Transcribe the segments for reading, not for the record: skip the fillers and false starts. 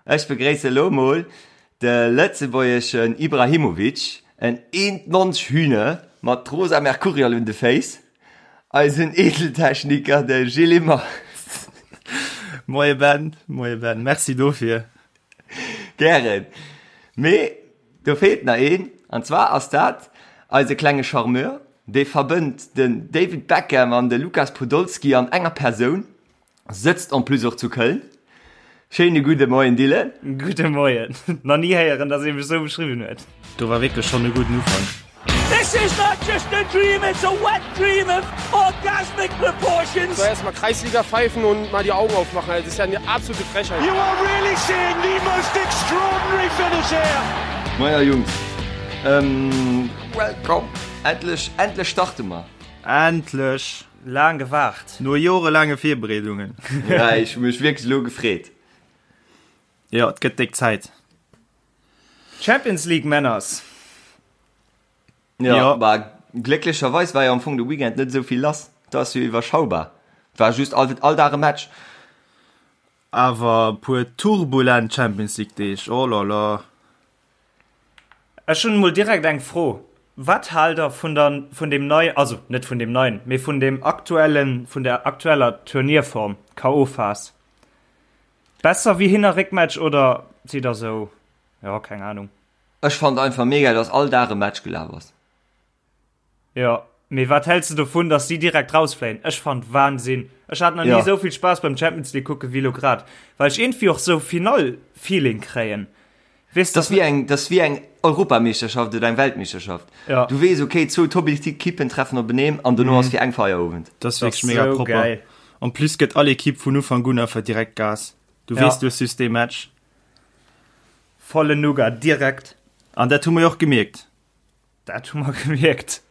Ech begréisse lo mol de lëtzebuergeschen Ibrahimovic, en 1,90 Hühne mat rosa Mercurial un de Féiss, eisen Edeltechniker, de Gilles Immer. Moie Ben, moie Ben, merci dofir. Gären. Mee do feelt nach een, an zwar ass dat eise klenge Charmeur, dee verbënnt den David Beckham an de Lukas Podolski an enger Persoun. Sëtzt en plus och zu Köln. Schéine gudde Moien Dylan. Gudde Moien. Nach ni héieren, dass ee mech sou beschriwwen huet. Do war wierklech schonn e gudden Ufank. This is not just a dream, it's a wet dream of orgasmic proportions. So erstmal Kreisliga pfeifen und mal die Augen aufmachen, das ist ja eine absolute Frechheit. You are really seeing the most extraordinary finish here. Maja Jungs, ähm, welcome! Endlech, endlech starte mer! Endlech! Laang gewaart. No jorelaange Virbereedungen. Ja, ech hu mech wierklech elo gefreet. Jo, et gëtt déck Zäit. Champions League Männers. Ja, ja. Bah, glécklecherweis war jo am Fong de Weekend net esou vill lass. Dat ass jo iwwerschaubar. Et war just all, all Dag e Match. Awer e puer turbulent Champions League Deeg, oh là là. Ech hunn emol direkt eng Fro, Wat haalt der vun der, vun deem nei, also net vun deem neien, mee vun deem aktuellen, vun der aktueller Turnierform, KO-Phas? Besser wéi Hin a Réckmatch oder sidd der sou, jo, keng Ahnung. Ech fand einfach mega dass all Dag e Match gelaf ass. Jo, mee wat häls de dovun, dass si direkt rausfléien? Ech fand Wahnsinn. Ech hat nach ni esou vill Spaass beim Champions League kucke wéi lo grad, well ech iergendwéi och sou Finall-Feeling kréien. Weess de? Dat ass wéi eng Europameeschterschaft oder eng Weltmeeschterschaft. Du weess, okay, zwou Top-Ekippen treffen openeen an dono ass fir eng Feierowend. Dat ass wierklech mega propper. En plus gëtt all Ekipp vun Ufank un einfach direkt Gas. Du weess, du hues just dee Match. Volle Nougat direkt. An dat hu mer jo och gemierkt. Dat hu mer gemierkt.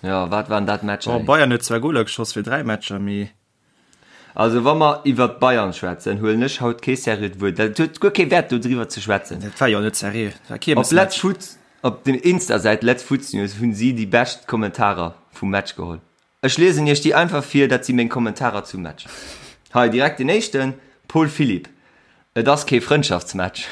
Jo, wat waren dat Matcher, ey. Bayern huet zwar Goler geschoss fir 3 Matcher, mee. Also wa mer iwwert d'Bayern schwätzen, huelen ech haut kee seriöt Wuert. Dat huet guer kee Wäert do driwwer ze schwätzen. Dat war jo net seriö, dat war Op Let's Kiermesmatch. Foot, op dem Insta-Säit Let's Futsnews hunn si déi bescht Kommentarer vum Match geholl. Ech liesen iech déi einfach vir, dat si meng Kommentarer zum Match. Hei direkt den éischten, Paul Philipp, Et ass kee Frëndschaftsmatch.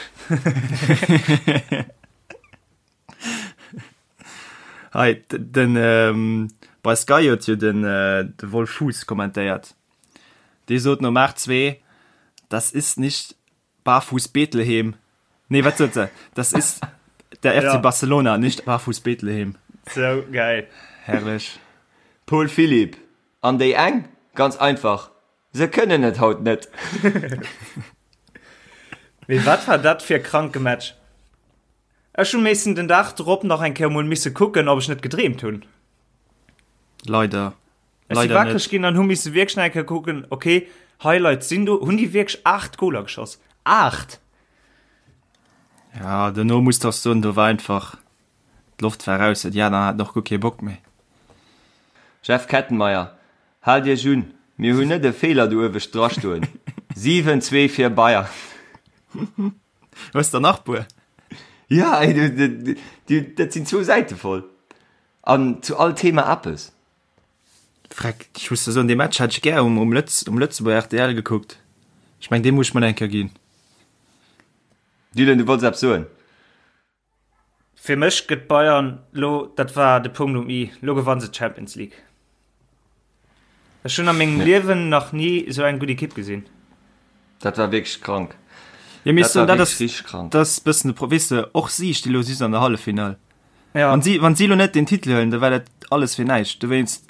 Hei, den, ähm, bei Sky huet jo den, äh, de Wolf Fuß kommentéiert. Dee sot nom 8-2, Das ist nicht Barfuß Bethlehem. Nee, wat sot se? Das ist der FC ja. Barcelona, nicht Barfuß Bethlehem. So geil. Herrlech. Paul Philipp, An déi eng? Ganz einfach, se kënnen et haut net. Mee wat war dat fir e kranke Match? Ech hunn missen den Dag drop nach eng Kéier mol misse kucken, ob ech net gedreemt hunn. Leider. Ech si Leider wakreg net. ginn an hu misse wierklech nach eng Kéier kucken, okay, Highlights sinn do. Hunn déi wierklech 8 Goler geschoss? 8! Ja, dono muss de och soen, do war einfach d'Loft war raus, déi aner haten och guer kee Bock méi. Jeff Kettenmeyer, Haalt iech un, mir hunn net e Feeler do uewescht drastoen. 7, 2 fir Bayern. Hues der nach puer? Ja, ey, du, du, du, dat sinn zwou Säite voll. An zu all Thema eppes. Freck, ech muss der soen, dee Match hätt ech gär um, um, Lëtz, um Lëtzebuerger rtl gekuckt. Ech meng, dee muss ech mer eng Kéier ginn. Dylan, du wollts eppes soen? Fir mech gëtt Bayern lo, dat war de Punkt um i, lo gewanne se d'Champions League. Ech hunn a mengem Liewen nach ni esou eng gutt Ekipp gesinn. Dat war wierklech krank. Ja, mee Dat war dat wierklech ass, richteg krank. dat ass e bëssen de Pro, weess de, och si sti lo just an der Halleffinall. Ja. Wann si, wann si lo net den Titel huelen, da war dat alles fir näischt. Dowéinst,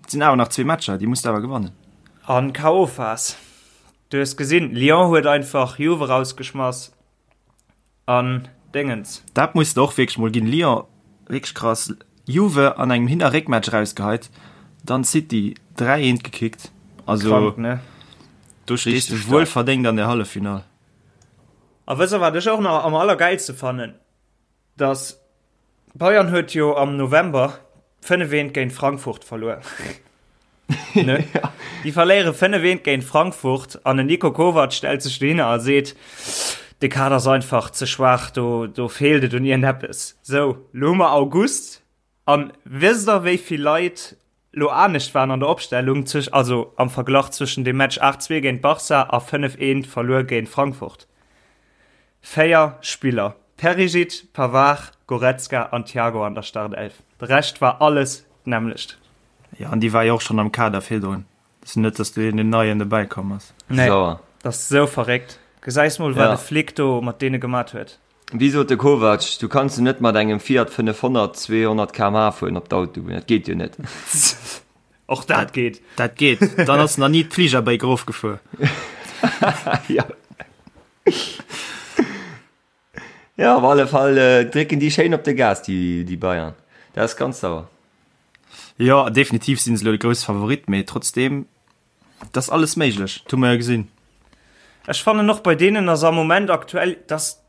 et sinn awer nach zwee Matcher, déi muss de awer gewannen. An K.O.-Phas. Du hues gesinn, Lyon huet einfach Juve rausgeschmass. An Déngens. Dat muss de och wierklech mol ginn. Lyon wierklech krass. Juve an engem Hin a Réckmatch erausgeheit, dann City 3 eent gekickt. Also Krank, ne? do stees de Richteg wuel staark. verdéngt an der Halleffinall. A wësst der wat ech och nach am allergäilste fannen? Dass Bayern huet jo am November 5 eent géint Frankfurt verluer. Ne? Déi verléiere 5 eent géint Frankfurt an den Niko Kovac stellt sech dohinner a seet, de Kader ass einfach ze schwaach, do, do feelt et un iergendeppes. Sou, lo hu mer August an wësst der wéi vill Leit lo anescht waren an der Opstellung, also am Verglach zwëschen dem Match 8-2 géint Barca a 5 eent verluer géint Frankfurt? 4 Spiller, Perisic, Pavard, Goretzka an Thiago an der Startelf. De Rescht war alles d'nämmlecht. Jo, an déi war jo och schonn am Kader virdrun. Et ass jo net, datt do een neien dobäi komm ass. Nee, dat ass esou verréckt. Gesäis mol, wat de Flick do mat deene gemat huet. Wéi sot de Kovac, du kanns jo net mat engem Fiat 500 200 km/h fueren op d'Autobunn, dat geet jo net. Och dat geet. Dat geet. Dann ass nach ni d'Fligerbréck erofgefuer. Ja. Ja, op alle Fall äh, drécken déi schéin op de Gas, déi, déi Bayern. Dat ass ganz sauer. Jo, definitiv sinn se elo de grousse Favorit, mee trotzdeem, et ass alles méiglech, dat hu mer jo gesinn. Ech fannen och bei deenen ass am Moment aktuell, dass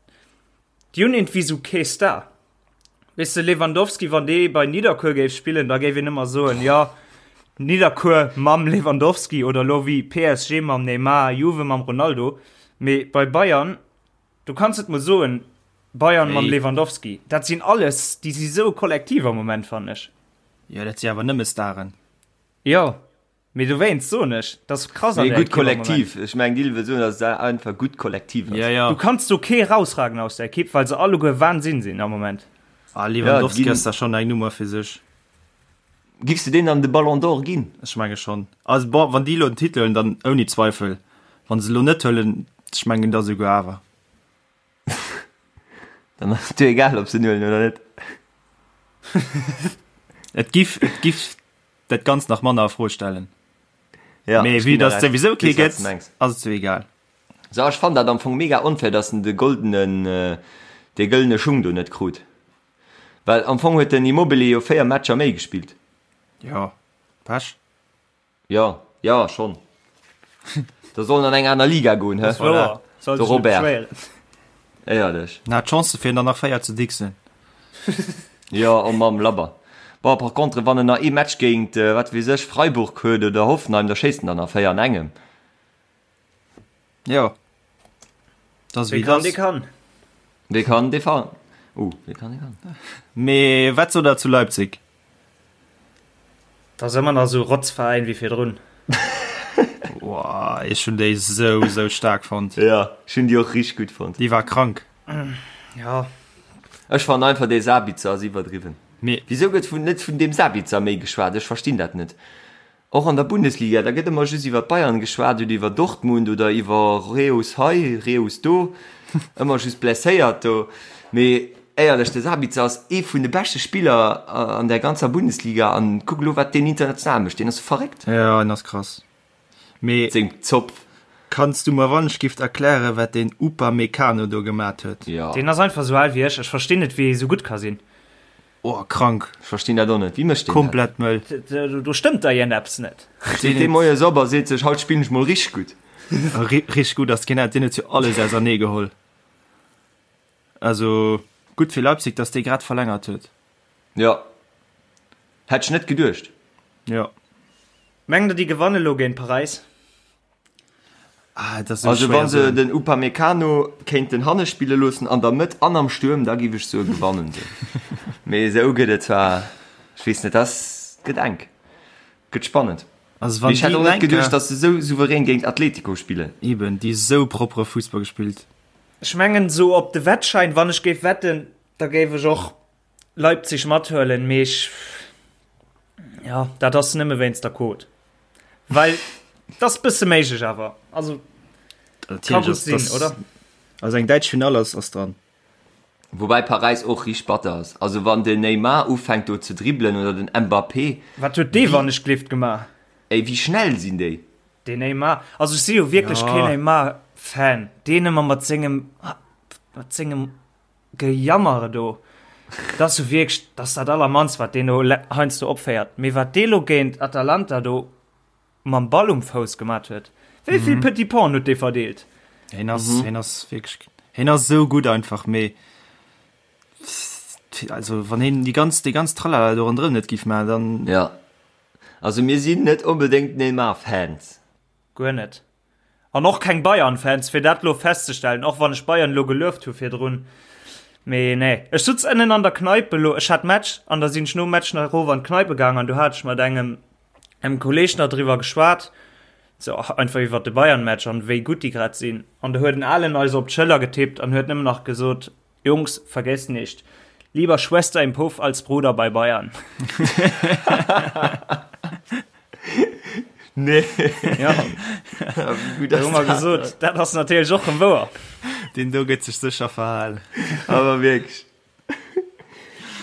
déi hunn iergendwéi sou kee Star. Weess de, Lewandowski, wann dee bei Nidderkuer géif spillen, da géif een ëmmer soen, jo, Nidderkuer mam Lewandowski oder elo wéi PSG mam Neymar, Juve mam Ronaldo. Mee bei Bayern, du kanns net mol soen, Bayern mam Lewandowski. Dat sinn alles, déi si sou kollektiv am Moment, fannen ech. Jo, dat si awer nëmme Staren. Jo. Mee dowéinst soen ech, dat ass krass an der Ekipp am Moment. Mee gutt Kollektiv, ech mengen Dil wëll soen, datt et einfach gutt Kollektiv ass. Ja, ja. Du kanns do kee rausragen aus der Ekipp, well se alleguer Wahnsinn sinn am Moment. Ah, Lewandowski ass da schonn eng Nummer fir sech. Giffs de deen dann de Ballon d'Or ginn? Ech menge schonn. Also bon, wann déi elo den Titel huelen, dann ouni Zweifel. Wann se elo net huelen, ech mengen da souguer awer. Dann ass et dir egal, ob se en huelen oder net. Et giff, et giff dat Ganzt nach manner a Fro stellen. Ja, Mee ech vue ginn der dass et Recht. souwisou kee Weess, wat s gëtt, de mengs. ass et sou egal. So, ech fannen dat am Fong mega onfair, dass en de goldenen, dee gëllene Schung do net krut. Well am Fong huet den Immobile jo 4 Matcher méi gespillt. Jo, Pech. Jo, jo, schonn. Da soll en an eng aner Liga goen, hä? Das wouer. Soll De sech net Robert. beschwéieren. Éierlech. En hat d'Chance fir der nach 4 ze dixen. Jo, oh Mamm, labber. Bon, par contre, wann en nach ee Match géint, wat weess ech, Freiburg huet oder Hoffenheim, da schéisst en der nach 4 an engem. Jo. Das Wee wéi kann, dee das. kann. Wee kann, dee fa. Uh, wee kann, dee kann. Mee wat sot der zu Leipzig? Dat ass ëmmer nach esou Rotzveräin wéi virdrun. Woah, ech hunn déi sou, sou staark fonnt. Ja, ech hunn déi och richteg gutt fonnt. Déi war krank. Ja. Ech fannen einfach dee Sabitzer ass iwwerdriwwen. Mee. Wisou gëtt vun net vun deem Sabitzer méi geschwat? Ech verstinn dat net. Och an der Bundesliga, da gëtt ëmmer just iwwer d'Bayern geschwat oder iwwer Dortmund oder iwwer Reus hei, Reus do, ëmmer just blesséiert do. Mee éierlech, de Sabitzer ass ee vun de beschte Spiller an der ganzer Bundesliga an kuck elo wat deen international mécht, deen ass verréckt. Jo, en ass krass. Mee Seng Zopf. Kanns du mer wannechgift erklären, wat deen Upamecano do gemat huet? Jo. Deen ass einfach esou al wéi ech, ech verstinn net wéi ee esou gutt ka sinn. Oh krank. Ech verstinn dat och net. Wéi mécht deen dat? Komplett mëll. Do stëmmt da iergendeppes net. Steet dee moies op a seet sech, haut spillen ech mol richteg gutt. Richteg gutt ass keen, deen huet jo alles ausernee geholl. Also gutt fir Leipzig, datt dee grad verlängert huet. Jo, hätt ech net geduecht. Jo. Mengt der déi gewanne lo géint Paräis? Ah, dat ass esou Also schwéier wa se soen. den Upamecano kéinten hanne spille loossen, an der Mëtt an am Stuerm, da giff ech soe gewannen se. Mee esou gëtt et zwar, ech weess net, ass gëtt enk, gëtt spannend. Also Mee wann ech hätt déi och net enker, geduecht, datt se esou souverän géint Atletico spillen. eben, déi esou proppere Fussball gespillt. Ech mengen esou op de Wettschein, wann ech géif wetten, da géif ech och Leipzig mathuelen, mee ech, ja, dat ass nëmme wéinst der Quote. Well dat ass bësse méiglech awer. Also ka gutt sinn, oder? Also eng däitsch Finall ass ass dran. Woubäi Paräis och richteg batter ass. Also wann den Neymar ufänkt do ze dribbelen oder den Mbappé. Wat huet dee wannechglift gemaach? Ey, wéi schnell sinn déi? Den Neymar, also ech si jo wierklech keen Neymar-Fan. Deen ëmmer mat sengem, mat sengem Gejammere do, dat ass jo wierklech, dat ass dat allermannst, wat deen do heiansdo opféiert. Mee wat dee lo géint Atalanta do mam Ball um Fouss gemat huet, wéi vill Petits Painen huet dee verdeelt? Hien ass, hien ass wierklech, hien ass esou gutt einfach, mee also wann hien déi ganz, déi ganz Tralala do ronderëm net géif maachen, dann. Jo, also mir sinn net onbedéngt Neymar-Fans. Guer net. An och keng Bayern-Fans, fir dat lo festzestellen, och wann ech Bayern lo gelueft hu virdrun. Mee nee, ech sutz ënnen an der Kneipe lo, ech hat Match an da sinn ech nom Match nach erof an d'Kneipe gaang an do hat ech mat engem engem Kolleg nach driwwer geschwat. Sou einfach iwwert de Bayern-Match an wéi gutt déi grad sinn. An do huet en Alen eis op d'Schëller getippt an huet nëmmen nach gesot, Jungs, vergesst nicht, lieber Schwester im Puff als Bruder bei Bayern. Nee. Ja. Da hu mer gesot, dat ass natierlech och rëm wouer. Deen do gëtt sech sécher verhalen. Awer wierklech.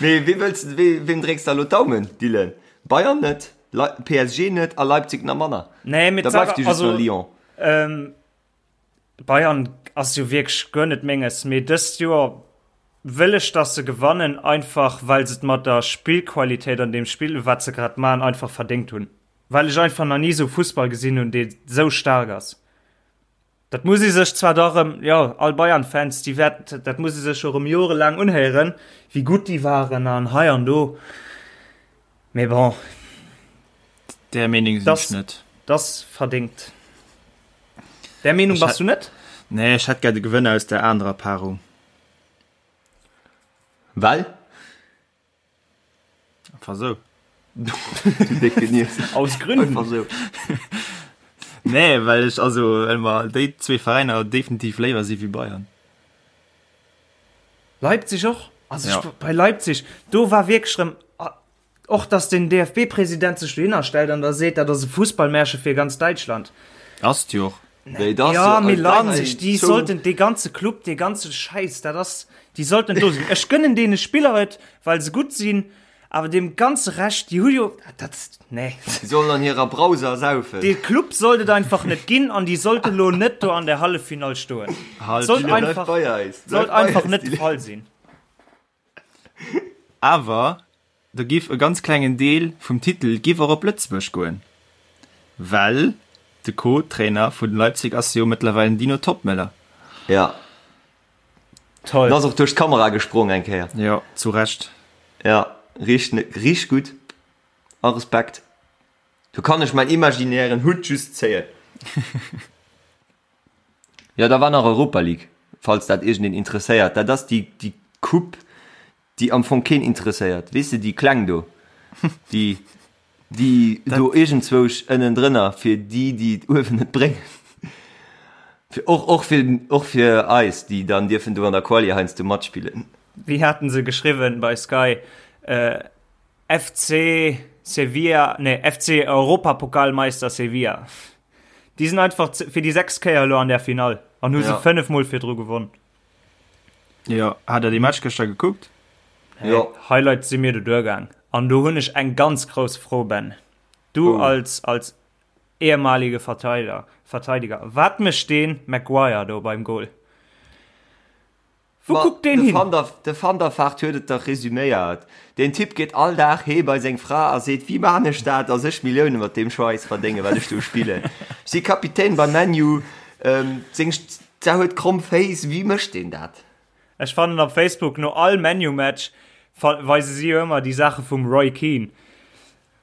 Mee wee wëlls de, wee, weem drécks de elo d'Daumen, Dylan? Bayern net, Le PSG net a Leipzig nach manner. Nee, mee Da bleift dir just also, nach Lyon. Ähm, Bayern ass jo wierklech guer net menges, mee dëst Joer wëll ech, dass se gewannen, einfach well se et mat der Spillqualitéit an deem Spill, wat se grad maachen, einfach verdéngt hunn. Well ech einfach nach ni sou Fussball gesinn hunn, dee sou staark ass. Dat muss ee sech zwar da rëm, jo, all Bayern-Fans, déi wäert, dat muss ee sech jo rëm jorelaang unhéieren, wéi gutt déi waren an hei an do, mee bon. Där Meenung sinn ech net. Dat ass verdéngt. Där Meenung bass du net? Nee, ech hätt gär de Gewënner aus där anerer Paarung. Well? Einfach sou. Du décke Nies. Aus Gründen. Einfach sou. Nee, well ech, also, well mer déi zwee Veräiner definitiv léiwer si wéi Bayern. Leipzig och. Also Ja. ech, bei Leipzig, do war wierklech rëm, och dass den DFB-President sech dohinner stellt an da seet, dat ass e Fussballmärche fir ganz Däitschland. Ass et jo och. Nee, dat ass Ja, jo mee als Leipzig, déi Zou- sollten, dee ganze Club, dee ganze Schäiss, dat ass, déi sollten do sinn. Ech gënnen deene Spiller et, well se gutt sinn, awer deem ganze Rescht, déi hu jo, dat, nee. Déi sollen an hirer Brauser saufen. Dee Club sollt et einfach net ginn an déi sollte lo net do an der Halleffinall stoen. Halt, Sollt Dylan, bleif einfach, bei eis. Bleif sollt bei einfach eis, net de Dylan. Fall sinn. Awer do giff e ganz klengen Deel vum Titel giff och op Lëtzebuerg goen, well de Co-Trainer vun Leipzig ass jo mëttlerweil den Dino Toppmöller. Ja. Toll. En ass och duerch d'Kamera gesprong eng Kéier. Jo, zu Recht. Ja, richteg, richteg gutt. A Respekt. Do kann ech mäin imaginären Hutt just zéien. Jo, da war nach Europa League, falls dat iergendeen interesséiert. Dat ass déi, déi Coupe, déi am Fong keen interesséiert. Weess de, déi kleng do, déi, déi do iergendzwousch ënnendrënner, fir déi, déi et uewen net bréngen. Fir och, och fir, och fir eis, déi dann dierfen do an der Quali heiansdo matspillen. Wéi haten se geschriwwen bei Sky? FC Sevilla, nee, FC Europapokalmeister Sevilla. Déi sinn einfach fir déi 6 Kéier elo an der Finall an hu se 5 mol virdru gewonn. Jo, hat der dee Match gëschter gekuckt? Jo. Highlights si mir do duergaang an do hunn ech eng ganz grouss Fro, Ben. Du als als ehemalige Verteider, Verteidiger, wat mécht dee Maguire do beim Goal? Wou kuckt deen hin? De Van der Vaart huet et dach resüméiert, Deen Typ geet all Dag heem bei seng Fra a seet, Wéi maan ech dat, dass ech Millioune mat deem Schweiss verdéngen, wat ech do spillen? Ech si Kapitän bei ManU, seng Fra huet kromm Féiss, wéi mécht deen dat? Ech fannen op Facebook no all ManU-Match weise si jo ëmmer déi Saache vum Roy Keane.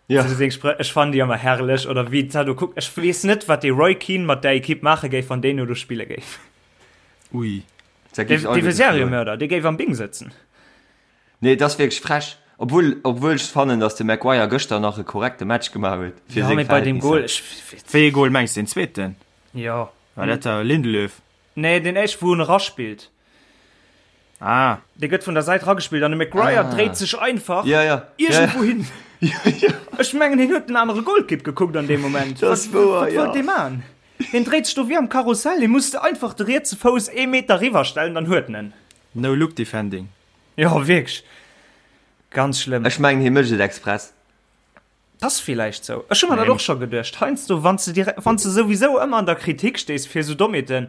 Ja. Ech fannen déi ëmmer herrlech oder wéi d'Sa do kuckt. Ech weess net, wat dee Roy Keane mat där Ekipp maache géif, wann deen no do spille géif. Ui. Dee wier Seriemörder, dee géif am Bing sëtzen. Nee, et ass wierklech frech. Obwuel, obwuel ech fannen, datt de Maguire gëschter nach e korrekte Match gemaach huet fir seng Verhältnisser. Wéi ee Goal mengs de? Den zweeten? Jo. War dat der Lindelöf? Nee, deen éischten, wou en eraspillt. Ah. Dee gëtt vun der Säit ragespillt an de Maguire ah. dréit sech einfach ja, ja. iergendwou ja, ja. hin. Ja, ja. Ech mengen, hien huet den anere Golkipp gekuckt an deem Moment. Dat ass wouer, ja. Wat wollt dee man? Hien dréit sech do wéi am Karussell, hie muss einfach de rietse Fouss ee Meter riwwer stellen, dann huet en en. No look defending. Jo, wierklech. Ganz schlëmm. Ech mengen, hie mécht et express. T'ass villäicht sou. Ech hu mer dat och scho geduecht. Heiansdo, wann s de direkt, wann s de souwisou ëmmer an der Kritik stees fir sou Dommheeten,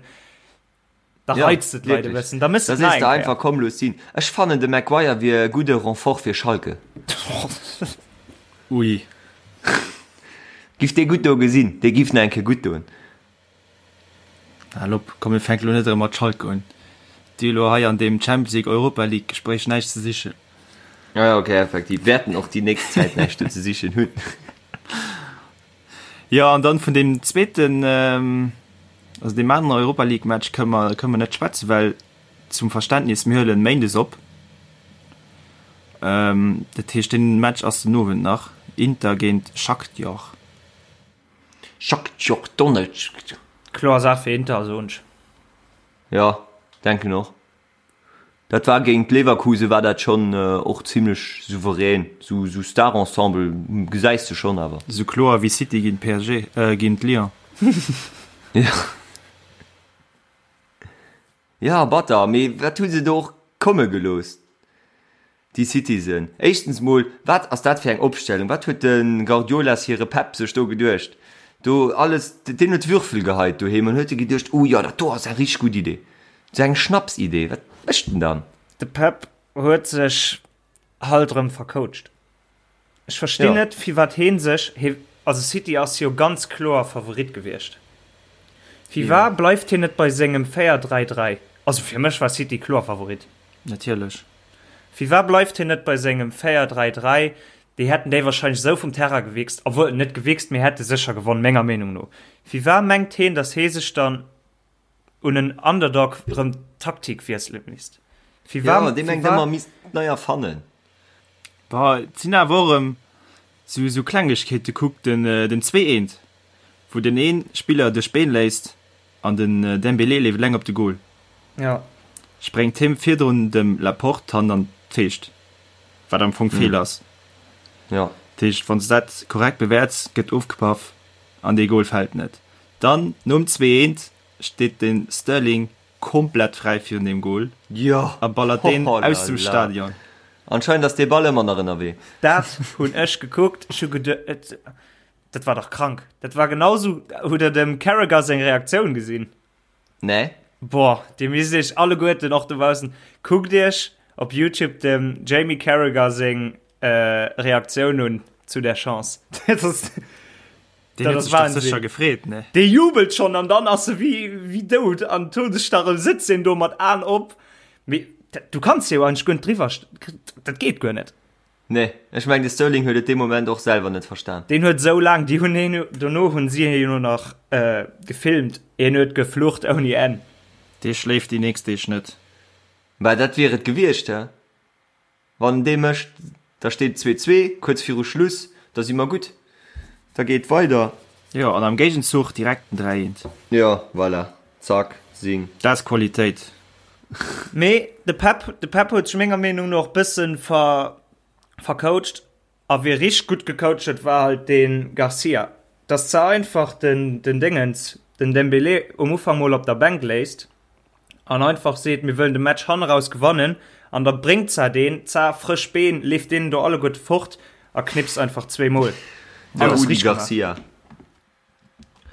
da Ja, reizt de d'Leit e wierklech. bëssen. Da méchs de Da et sees nach de eng einfach, Kéier. komm, looss sinn. Ech fannen, de Maguire wier e gudde Renfort fir Schalke. Ui. Giff dee gutt do gesinn, dee giff nach eng Kéier gutt doen. Hal op, komm mir fänke lo net erëm mat Schalke un. Déi hu lo hei an deem Champions League, Europa League Gespréich näischt ze sichen. Ah ja, okay, effektiv wäerten och déi nächst Zäit näischt do ze sichen hunn. Jo, an dann vun deem zweeten, also deem aneren Europa League Match kënne mer, kënne mer net schwätzen, well zum Verständnis, mir huelen méindes op. Dat heescht, deen Match ass den Owend nach, Inter géint Shakhtar. Shakhtar Donetsk. Kloer Saach fir Inter, soen ech. Jo, denken och. Dat war géint Leverkusen war dat schonn och zimlech souverän. Sou sou Star-Ensemble gesäis de schonn awer. Sou kloer wéi City géint PSG, äh géint Lyon. Jo. Jo, batter, mee wat hu se do och komme gelooss? Déi Citizen. Éischtens mol, wat ass dat fir eng Opstellung? Wat huet de Guardiolas hire Pep sech do geduecht? Do alles, deen huet Würfel geheit doheem an huet e geduecht, oh jo, dat do ass eng richteg gutt Idee. Sou eng Schnapsidee. Wat mécht en dann? De Pep huet sech halt erëm vercoacht. Ech verstinn net, firwat hee sech, hee, also City ass jo ganz kloer Favorit gewiescht. Firwat bleift hien net bei sengem 4, 3, 3? Also fir mech war City kloer Favorit. Natierlech. Firwat bleift hien net bei sengem 4, 3, 3? Déi hätten déi wahrscheinlech esou vum Terrain gewichst, obwuel, net gewichst, mee hätte sécher gewonn, menger Meenung no. Firwat mengt heen, datt hee sech dann un en Underdog erëm d'Taktik wiessele misst? Firwat, Jo, dee mengt ëmmer, misst nei erfannen. Bah, et sinn awer och erëm sou, sou Klengegkeete. Kuck den, den 2, 1, wou den ee Spiller duerch d'Been léisst An den Dembélé leeft eleng op de Goal. Ja. Spréngt him virdrun dem Laporte d'Hand an d'Feescht, wat am Fong Feeler ass. Ja. Dat heescht, wann s de dat korrekt bewäerts, gëtt ofgepaff an dee Goal fält net. Dann nom 2, 1 steet de Sterling komplett fräi virun deem Goal Jo. a ballert deen Oh la aus dem la. Stadion. Anscheinend ass dee Ball ëmmer nach ënnerwee. Dat hunn ech gekuckt, ech hu geduet, Dat war dach krank. Dat war genau sou. Hutt der dem Carragher seng Reaktioun gesinn? Nee. Boah, dir misst iech alleguerten och dobaussen, kuckt iech op YouTube dem Jamie Carragher seng äh, Reaktioun un zu der Chance. Dat ass, Den dat huet ass sech dach Wahnsinn. sécher gefreet, ne? Dee jubelt schon an dann ass e wéi, wéi dout an Todesstarre, sëtzt en do mat Aen op. Mee dat, du kanns jo eigentlech guer net driwwer, dat geet guer net. Nee, ech mengen de Sterling huet et dee Moment och selwer net verstan. Deen huet esou laang, déi hunn hien, dono hunn si hien jo nach gefilmt, hien huet geflucht ouni Enn. Dee schléift déi nächst Deeg net. Bah, dat wier et gewiescht, he? Wann en dee mécht, da steet et 2, 2, kuerz viru Schluss, da si mer gutt, da geet et weider. Jo, an am Géigenzuch direkt den 3, 1. Jo, voilà, zack, sing. Dat ass Qualitéit. Mee de Pep, de Pep huet sech menger Meenung no och bëssen ver, vercoacht. A wie richteg gutt gecoacht huet, war halt de Garcia. Dass ze einfach den, den Déngens, den Dembélé um Ufank mol op der Bänk léisst an einfach seet, mir wëllen de Match hanneraus gewannen an da bréngt za deen, za frësch Been, leeft deenen do alleguerte fort a knipst einfach zweemol. De Rudi Garcia.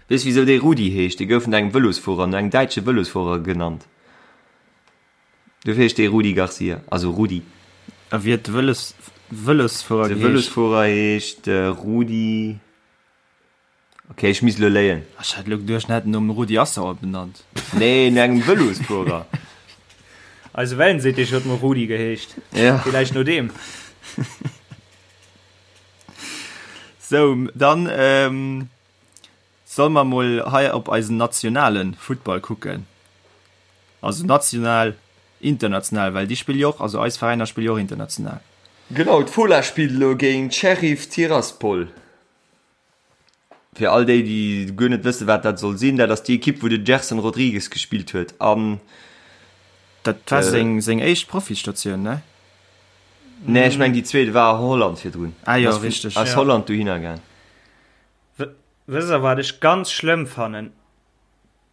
Weess wisou dee Rudi heescht? Dee gouf no engem Vëlosfuerer, no engem däitsche Vëlosfuerer genannt. Dofir heescht dee Rudi Garcia, also Rudi. A wéi huet de Vëlos, Vëlosfuerer De geheescht? Vëlosfuerer heescht Rudi, ok ech misst elo léien. Ech hat elo geduecht, en hätt en nom Rudi Assauer benannt. Nee, no engem Vëlosfuerer. Eise Wellensittich huet mol Rudi geheescht. Ja. Villäicht no deem. Sou, dann ähm, solle mer mol hei op eisen nationale Futtball kucken. Also national, international, well déi spille jo och, also eis Veräiner spille jo och international. Genau, d'Fola spillt elo géint Sheriff Tiraspol. Fir all déi, déi guer net wëssen, wat dat soll sinn, dat ass déi Ekipp, wou de Gerson Rodrigues gespillt huet an. Dat war seng, seng éischt Profistatioun, ne? Nee, ech meng déi zweet war a Holland virdrun. Ah jo, richteg. Aus Holland dohinner gaang. Wësst der wat ech ganz schlëmm fannen?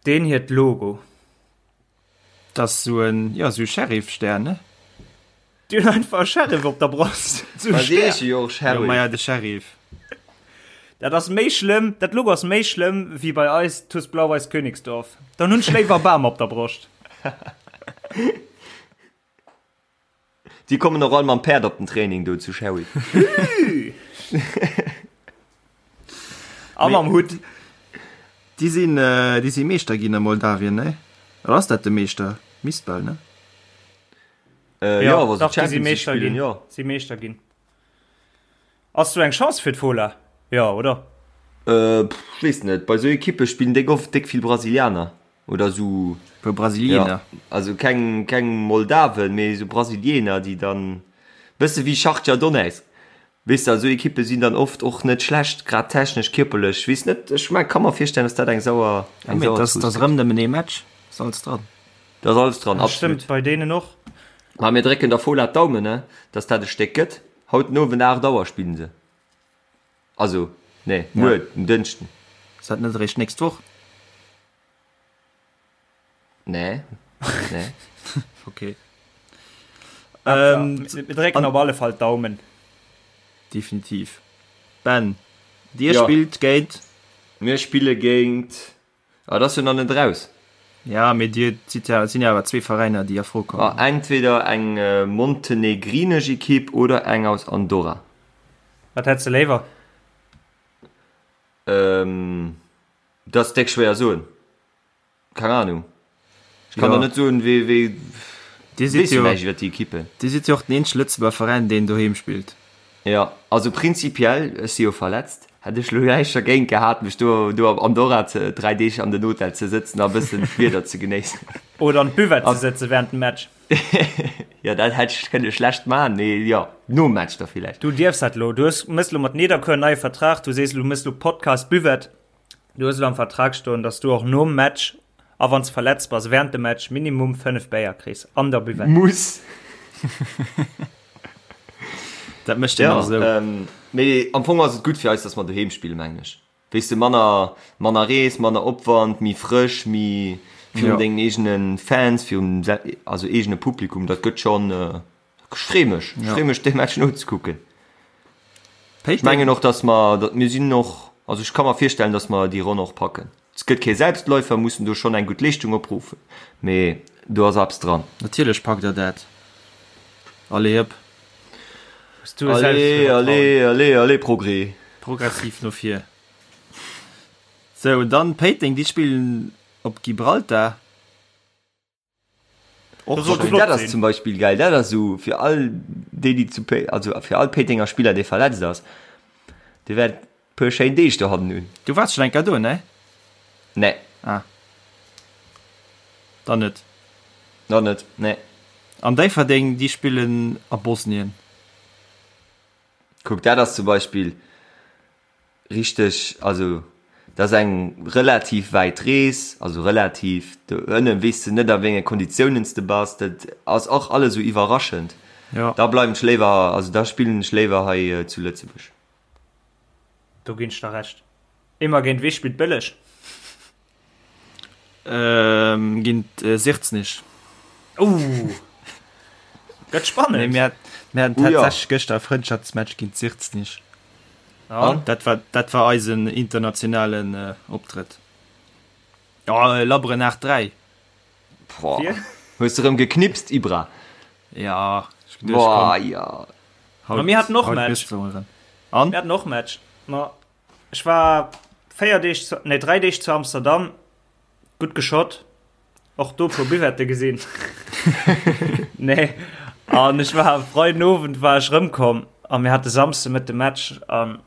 Deen hiert Logo. Dat ass sou en, jo, sou e Sheriff-Stär, ne? Déi hunn einfach e Sheriff op der Broscht. Sou e Ma déi Stär. heesche jo och Jo, maja, Sheriff. de Sheriff. Dat ass méi schlëmm, dat Logo ass méi schlëmm wéi bei eis TuS Blau-Weiß Königsdorf. Dann hunn ech léiwer Bam op der Broscht. Déi kommen och all mam Päerd op den Training do zu Sherry. A mam Hutt. Déi sinn, déi si Meeschter ginn a Moldawien, ne? Oder ass dat de Meeschter? Misst bal, ne? Äh, jo, wa se dach, déi si Champions League Meeschter spillen, ginn. jo. Si Meeschter ginn. Ass do eng Chance fir d'Fola? Jo, oder? Äh, pff, ech weess net. Bei sou Ekippe spillen déck oft déck vill Brasilianer. Oder sou. Puer Brasilieener. Ja, also keng, keng Moldawen, mee sou Brasilieener, déi dann, bësse wéi Schachtjar Donezk. Weess de, esou Ekippe sinn dann oft och net schlecht, grad technesch, kierperlech. Weess net, ech mengen, ka mer virstellen, dass dat eng sauer, eng sauer Zooss gëtt. Et ass erëm nëmmen ee Match, ass alles dran. Dat ass alles dran, absolut. Stëmmt, bei deenen och. Ma mir drécken der Fola d'Daumen, ne, dass dat e Stéck gëtt. Haut den Owend 8 Auer spillen se. Also, nee, muer, den Dënschden. Ass dat net eréischt d'nächst Woch? Nee. Nee. Okay. Ähm, mir drécken op alle Fall d'Daumen. Definitiv. Ben, dir Ja. spillt géint. Mir spille géint. Ah, dat ass jo nach net raus. Ja, mee dir sidd ja, sinn ja awer zwee Veräiner, déi a Fro kommen. Ah, entweder eng montenegrinesch Ekipp oder eng aus Andorra. Wat hätt se léiwer? Ähm, dat ass déck schwéier soen. Keng Ahnung. Ech kann Ja. der net soen, wéi, wéi, Dir sidd weess jo jo, näischt iwwer déi Ekippen. dir sidd jo och den eenzege Lëtzebuerger Veräin, deen doheem spillt. Jo, also prinzipiell, ech si jo verletzt, hätt ech lo näischt dergéint gehat, mech do, do am Andorra ze, 3 Deeg an den Hotel ze sëtzen a bëssen d'Wieder ze genéissen. Oder an d'Buvette ze sëtze während dem Match. Jo, dat hätt ech kënne schlecht man, mee jo, nom Match da villäicht. Du dierfs dat lo. Du hues, mëss lo mat Nederkuer en neie Vertrag, du sees, du mëss lo Podcast Buvette. Du hues elo am Vertrag stoen, dass du och nom Match a wann s verletzt bass während dem Match minimum 5 Béier kriss an der Buvette. Muss. Dat mécht een Ja, och esou. ähm, mee am Fong ass et gutt fir eis, dass mer doheem spillen, mengen ech. Weess de, manner, manner Rees, manner Opwand, méi frësch, méi virun Ja. dengen eegene Fans, virum also eegene Publikum, dat gëtt schonn, Ech free mech, ech free mech dee Match nozekucken. Ech mengen och, dass mer, datt mir sinn och, also ech ka mer virstellen, dass mer déi Ronn och packen. Et gëtt kee Selbstläufer, mussen do schonn eng gutt Leeschtung opruffen, mee do ass eppes dran. Natierlech packt der dat. Allez hëpp. Allez, allez, allez, allez Progrès. Progressiv no vir. Sou, dann Péiteng, déi spillen op Gibraltar. Och schön. Dat ass zum Beispill geil. Dat ass esou fir all déi, déi zu Pé also fir all Péitenger Spiller, dee verletzt ass, dee wäert puer schéin Deeg dohannen hunn. Du waars schon eng Kéier do, ne? Nee. Ah. Dann net. Dann net, nee. An Déifferdeng, déi spillen a Bosnien. Kuck, dat ass zum Beispill Richteg, also dat ass eng relativ wäit Rees, also relativ, do ënne weess de net a wéi enge Konditiounen s de bass, dat ass och alles esou iwwerraschend. Jo. Da bleiwen ech léiwer, also da spillen ech léiwer hei zu Lëtzebuerg. Do ginn ech der Recht. Immer géint wee spillt Bëlleg? Ähm, géint äh, Sirznich. Uh. Gëtt spannend. Nee, mir, mir haten Uh, ja. tatsächlich gëschter e Frëndschaftsmatch géint Sirznich. An? Dat war, dat war eisen internationalen äh, Optrëtt. Ja, äh, labberen 8-3. Boah. Fir? Hues de rëm geknipst, Ibra? Ja, ech geduecht, Boah, komm, ja. haut, Ma mir haten och haut Match. gëss du erëm. An? Mir haten och Match. Ma Ech war 4 Deeg, zu, nee 3 Deeg zu Amsterdam, gutt geschott, och do puer Buvette gesinn. nee, an ech war Freiden Owend war ech rëmkomm a mir hate Samsde Mëtte Match an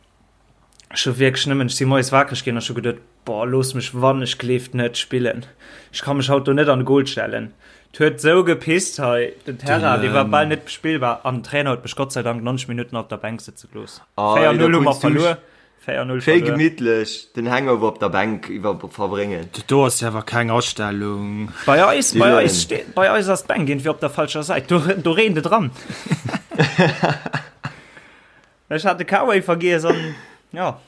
ech hu wierklech nëmmen, ech si moies wakereg ginn an ech hu geduet, boah, looss mech wann ech gleeft net spillen. Ech ka mech haut do net an de Goal stellen. Et huet sou gepisst hei, den Terrain, dee war bal net bespillbar an den Trainer huet mech Gott sei Dank 90 Minutten op der Bänk sëtze gelooss. 4-0 hu mer verluer. 4-0 Schéi verluer. gemittlech den Hangover op der Bänk iwwer verbréngen. Do ass jo awer keng Astellung. Bei eis, bei Dylan. eis steet, bei eis ass d'Bänk irgendwie op der falscher Säit. Do, do reent et dran. Ech hat de K-Way vergiess an ja.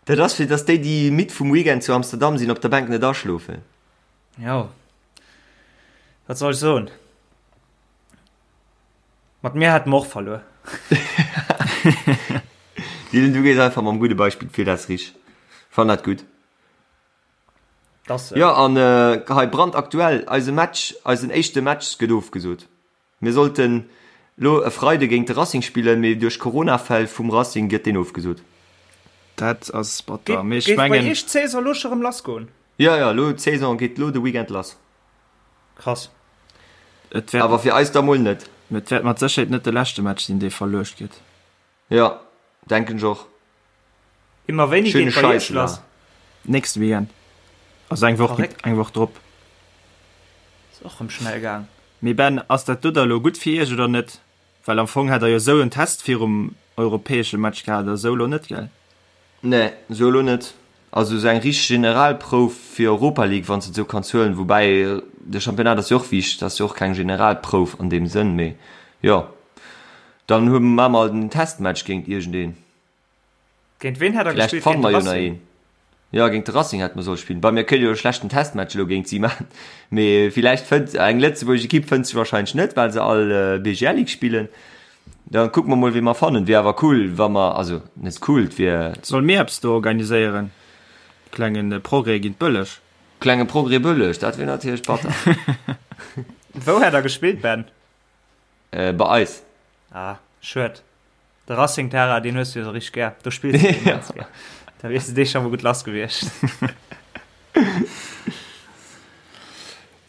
Dat ass fir dass déi déi midd vum Weekend zu Amsterdam sinn op der Bänk net aschlofen. Jo. Wat soll ech soen? Mat mir hätte mer och verluer. Dylan, du gees einfach mam gudde Beispill vir, dat ass richteg. Fann dat gutt. Das, Jo, an hei brandaktuell, eise Match, eisen éischte Match gëtt ofgesot. Mir sollten lo e Freide géint de Racing spillen, mee duerch Corona-Fäll vum Racing gëtt deen ofgesot. Dat ass batter, mee ech Géif bei mengen. iech d'Saison lo scho rëm lass goen? Jo, jo, lo d'Saison geet lo de Weekend lass. Krass. Et wäert, Awer fir eis da mol net. et wäert mat Sécherheet net de leschte Match sinn, dee verluecht gëtt. Jo, denken ech och. Immer wéini Schöne geet bei iech Scheiss lass? war. Nächste Weekend. Also eng Woch, Verréckt. eng Woch drop. Ass och rëm schnell gaang. Mee Ben, ass dat do da lo gutt fir iech oder net? Well am Fong hätt der jo esou en Test virum. europäesche Match gehat oder sou elo net, gell? Nee, sou elo net. Also sou eng richteg Generalprouf fir Europa League, wann s de et sou kanns huelen. Woubäi de Championnat ass jo och wichteg, dat ass jo och keng Generalprouf an deem Sënn, mee jo. Dann hu maache mer halt en Testmatch géint iergendeen. Géint ween hätt der Villäicht gespillt? fanne Géint de mer jo nach Racing? een. Jo, géint de Racing hätte mer solle spillen. Bei mir kënnt jo e schlechten Testmatch elo géint si maachen. Mee villäicht fënnt eng lëtzebuergesch Ekipp fënnt sech wahrscheinlech net, well se all BGL Ligue spillen. Dann kucke mer mol, wee mer fannen. Wier awer cool, wa mer, also net cool, et wier. Solle mir eppes do organiséieren? Klengen Progrès géint Bëlleg. Klenge Progrès Bëlleg, dat wier natierlech batter. Wou hätt der gespillt, Ben? Bei eis. Ah, schued. De Racing Terrain, deen hues du jo sou richteg gär. Do spills du immens gär. Da wiers de dee scho mol gutt lass gewiescht.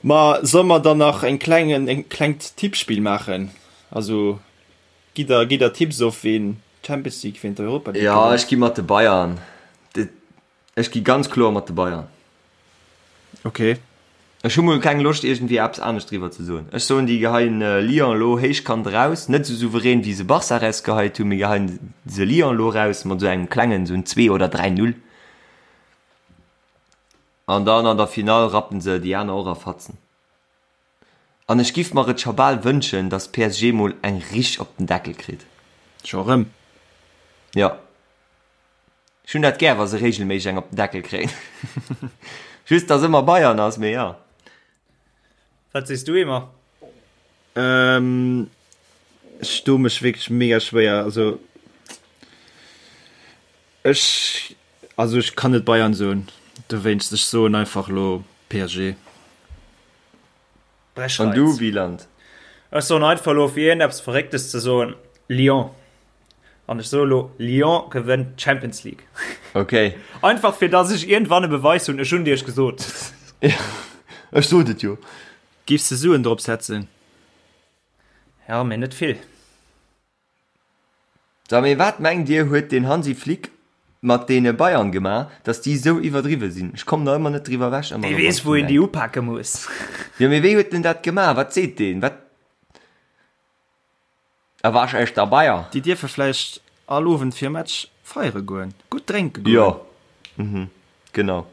Ma solle mer dann nach eng klengen, en klengt Tippspill maachen? Also gitt der, gitt der Tipps of, ween d'Champions League, ween d'Europa League Jo, gewënnt? ech gi mat de Bayern. Ech gi ganz kloer mat de Bayern. Ok. Ech hu mol keng Loscht iergendwéi eppes anescht driwwer ze soen. Ech soen déi geheien Lyon elo héichkant eraus, net esou souverän wéi se Barça erausgeheit hunn, mee geheien se Lyon elo eraus mat esou engem klengen, esou en 2 oder 3 Null. An dann an der Finall rappen se déi aner och a Fatzen. An ech giff mer et scho bal wënschen, dass PSG mol eng richteg op den Deckel kritt. Scho rëm? Jo. Ech hunn dat gär, wa se regelméisseg eng op den Deckel kréien. Just, dass ëmmer Bayern ass, mee jo. Wat sees du, Emer? Ähm, ech doe mech wierklech mega schwéier. Also ech, also ech kann net Bayern soen, dowéinst ech soen einfach elo PSG. An du, Wieland? Ech soen einfach elo, fir iergendeppes Verrécktes ze soen, Lyon. An ech soe lo, Lyon gewënnt d'Champions League. Ok. Einfach fir dass ech iergendwann e Beweis hunn, ech hunn et iech gesot. Ech sot et jo. Giffs de Suen drop setzen? Ja, mee net vill. So, mee wat mengt dir huet den Hansi Flick mat deene Bayern gemaach, dass déi esou iwwerdriwwe sinn? Ech kommen nach ëmmer net driwwer ewech, ëmmer Dee erëm, wann weess ech wou drun een déi denken. upake muss. Jo, mee wéi huet en dat gemaach? Wat seet deen? Wat? A wasch echter Bayer. Déi dierfe vläicht all Owend virum Match feiere goen, gutt drénke goen. Jo, mhm, genau.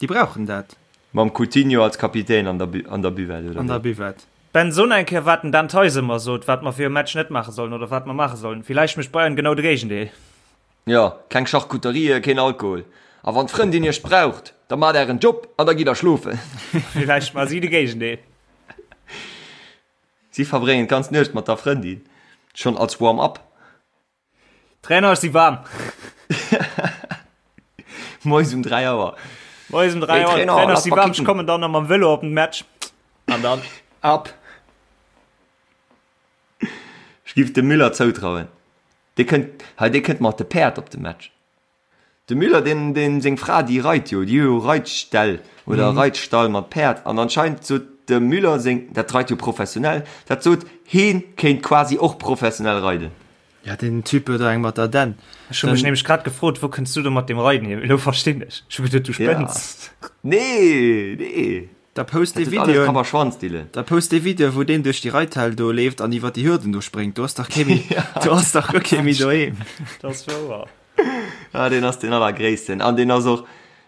Déi brauchen dat. Mam Coutinho als Kapitän an der an der Buvette, oder An der wéi? Buvette. Ben, so eng Kéier wat den Dan Theis ëmmer sot, wat mer virum Match net maache sollen oder wat mer maache sollen. Villäicht mécht Bayern genau de Géigendeel. Jo, keng Charcuterie, keen Alkohol. A wann d'Frëndin iech braucht, da maacht ären Job an da gitt der schlofen. Villäicht maache si de Géigendeel. Si verbréngen d'ganz Nuecht mat der Frëndin, schonn als Warm-up. Trainer, ech si waarm. Moies um 3 Auer. Moies um 3 Auer. Hey, Trainer, Trainer, ech lass si mal waarm, ech kicken. kommen dann nach mam Vëlo op den Match. An dann ab. Ech giff dem Müller zoutrauen. Dee kënnt, hei, dee kënnt mat de Päerd op de Match. De Müller, deen, deen seng Fra, déi reit jo, déi hu jo Reitställ oder Reitstall mat Päerd an anscheinend sot dem Müller seng, dat reit jo professionell, dat sot heen kéint quasi och professionell reiden. Ja, deen Typ huet der eng mat der Dänn. Ech hu mech nämlech grad gefrot, wou kënns du do mat dem Reiden hier? Elo verstinn ech. Ech hu geduet, du spënns. Nee, nee. Da post Dat dee huet alles Videoen, Kapp a Schwanz, Dylan. da post dee Video, wou deen duerch déi Reithal do leeft an iwwer déi Hürden do spréngt. Do ass dach kee méi, do ass dach guer kee méi doheem. Dat ass wouer. Ah, deen ass deen allergréissten. An deen ass och,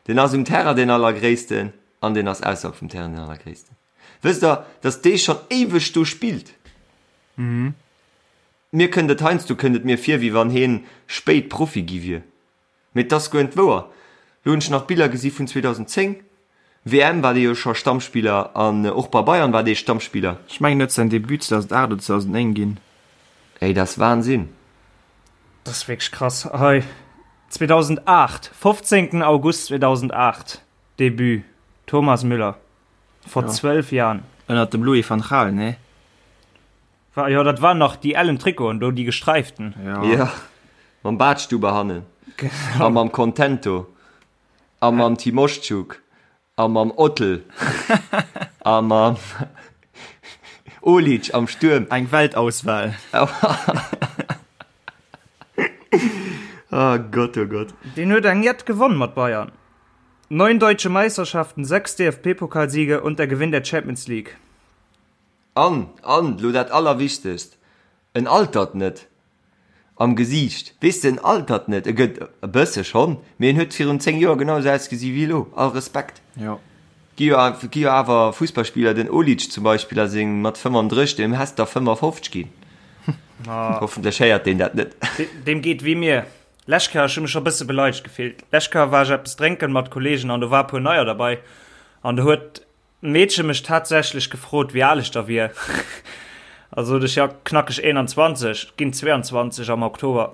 deen ass um Terrain deen allergréissten an deen ass ausserhalb vum Terrain deen allergréissten. Wësst der, datt dee schonn éiweg do spillt? Mir kënnt et heiansdo kënnt et mir vir, wéi wann heen spéit Profi gi wier. Mee et ass guer net wouer. Lo hunn ech nach Biller gesi vun 2010, WM war dee jo scho Stammspiller an och bei Bayern war dee Stammspiller. Ech mengen huet säin Debut 2008 oder 2009 ginn. Ey, dat ass Wahnsinn. Dat ass wierklech krass. Hei 2008, 15. August 2008, Debut, Thomas Müller, vor 12 Jahren. Ënnert dem Louis van Gaal, nee? War, jo, dat waren nach déi ellen Trikoten do, déi gesträiften. Ja. Ja, mam Badstuber hannen. Genau. A mam Contento. A mam Timoschuk. A mam Ottl. A mam Olic am Stuerm. Eng Weltauswahl. Oh Gott, oh Gott. Deen huet eng jett gewonn mat Bayern. 9 deutsche Meisterschaften, 6 DFB-Pokalsiege und der Gewinn der Champions League. An, an, lo dat Allerwichtegst, en altert net. Am Gesiicht. Weess de, en altert net, e gëtt e bësse schonn, mee en huet virun 10 Joer genau esou ausgesi wéi elo. All Respekt. Jo. Gi jo, gi jo awer Fussballspiller, den Olic zum Beispill a seng mat 35, deem häss der 55 ginn. Hoffentlech héiert deen dat net. Deem geet wéi mir. Lescht Kéier, ech hu mech scho bësse beleidegt gefillt. Lescht Kéier war ech eppes drénken mat Kollegen an do war e puer Neier derbei an do huet Meedche mech tatsächlech gefrot, wéi al ech da wier. A sot ech, jo, knackeg 21, ginn 22 am Oktober.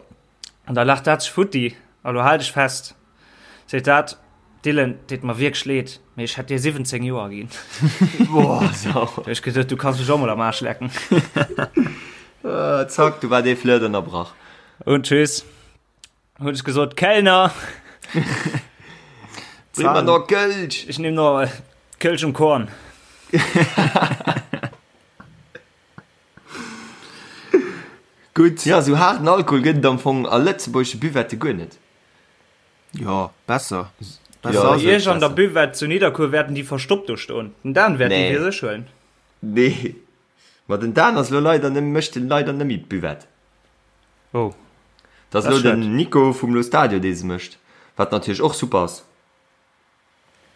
An da laacht dat sech futti. A lo hal dech fest, seet dat, Dylan, deet mer wierklech leed, mee ech hätt dir 17 Joer ginn. Boah, sau. Da hu ech geduet, du kanns mech och mol am Aarsch lecken. Zack, du war dee Flirt ënnerbrach. Und tschüss. Hunn ech gesot, Kellner! Bring mer noch Kölsch! Ech nimm noch Kölsch um Korn. Gutt. Ja, sou haarden Alkohol gëtt et am Fong a lëtzebuergesche Buvette guer net. Jo, besser. Besser ass et. Bei iech an der Buvette zu Nidderkuer wäerten déi verstoppt do stoen. Den Dan wäert déi fir sech huelen. Nee. Ma den Dan ass lo leider net, mécht leider net méi d'Buvette. Oh. Dat ass lo den Nico vum Lo Stadio dee se mécht, wat natierlech och super ass.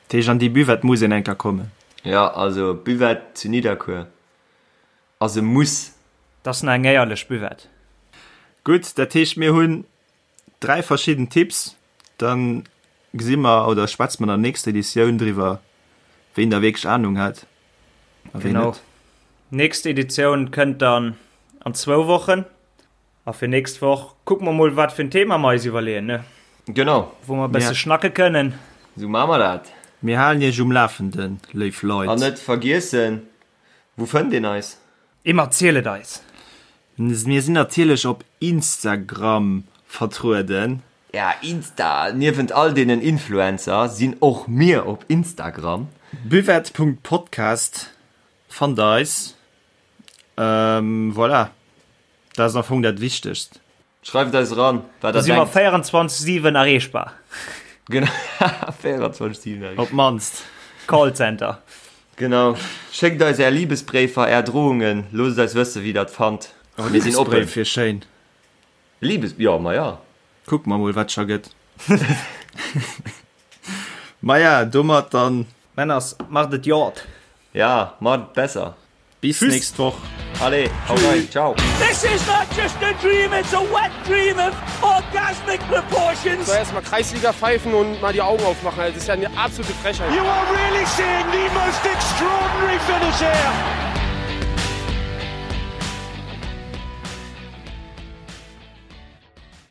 Dat heescht an déi Buvette muss een eng Kéier kommen. Jo, also Buvette zu Nidderkuer ass e Muss. Dat ass nach eng éierlech Buvette. Gutt, dat heescht mir hunn 3 verschidden Tipps, dann gesi mer oder schwätze mer an der nächster Editioun driwwer, ween da wierklech Ahnung hat a ween net. Nächst Editioun kënnt dann an zwou Wochen. A fir nächst Woch kucke mer mol, wat fir en Thema mer eis iwwerleeën, ne? Genau. Wou mer e bësse schnacke kënnen. Esou maache mer dat. Mir halen iech um Lafenden, léif Leit. An net vergiessen, wou fënnt een eis? Emma, ziel et eis! Mir sinn natierlech op Instagram vertrueden. Ja, Insta! Niewent all deenen Influencer sinn och mir op Instagram. Buvette.podcast fannt der eis. Voilà, dat ass am Fong dat Wichtegst. Schreift eis eran, wat der denkt. Do si mer 24, 7 erreechbar. Genau, 24, 7 erreechbar. Op d'mannst. Callcenter. Genau. Schéckt eis är Libesbréifer, är Drohungen, loosst eis wëssen, wéi der et fannt. Oh, Mir sinn oppen. Libesbréif wier schéin. Libes, jo, ma ja. Kucke mer mol, wat scho gëtt. Maja, domat dann. Männers, macht et jot. Ja, macht et besser. Bis Tschüss. nächst Woch. Allez, hau rein, ciao. This is not just a dream, it's a wet dream of orgasmic proportions. So erstmal Kreisliga pfeifen und mal die Augen aufmachen. Das ist ja eine absolute Frechheit. You are really seeing the most extraordinary finish here.